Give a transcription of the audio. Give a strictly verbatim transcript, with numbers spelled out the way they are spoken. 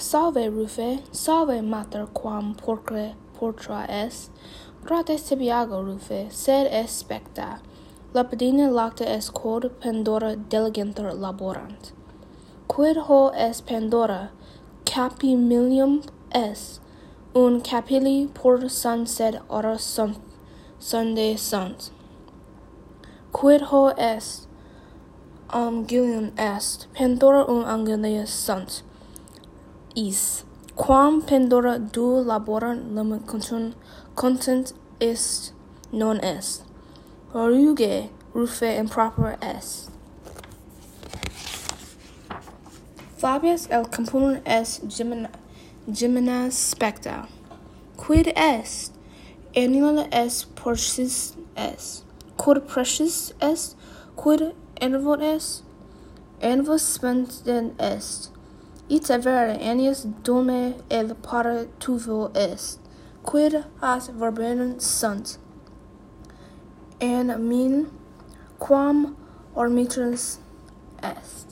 Salve, Rufe, salve, mater, quam pulchra porta est. Grata tibi ago, Rufe, sed est specta. Lapidina lacta est quod Pandora diligentur laborant. Quid ho est Pandora? Capimilium est. Unum capilli porta sunt, sed ora sunt, sunde sunt. Quid ho est? Angulum est. Pandora unum angulus sunt. Is. Quam Pandora duo laborant, limit content, content est, non est. Ruge, Rufe, impropera est. Fabius el componere est gemina, gemina specta. Quid est? Annulus est, precisus est. Quod precisus est? Quid annuit est? Annulus specta est. Ita vere, annulus domi et pari tuvo est. Quid hac verbenant sunt? An mine, quam arbitrans est.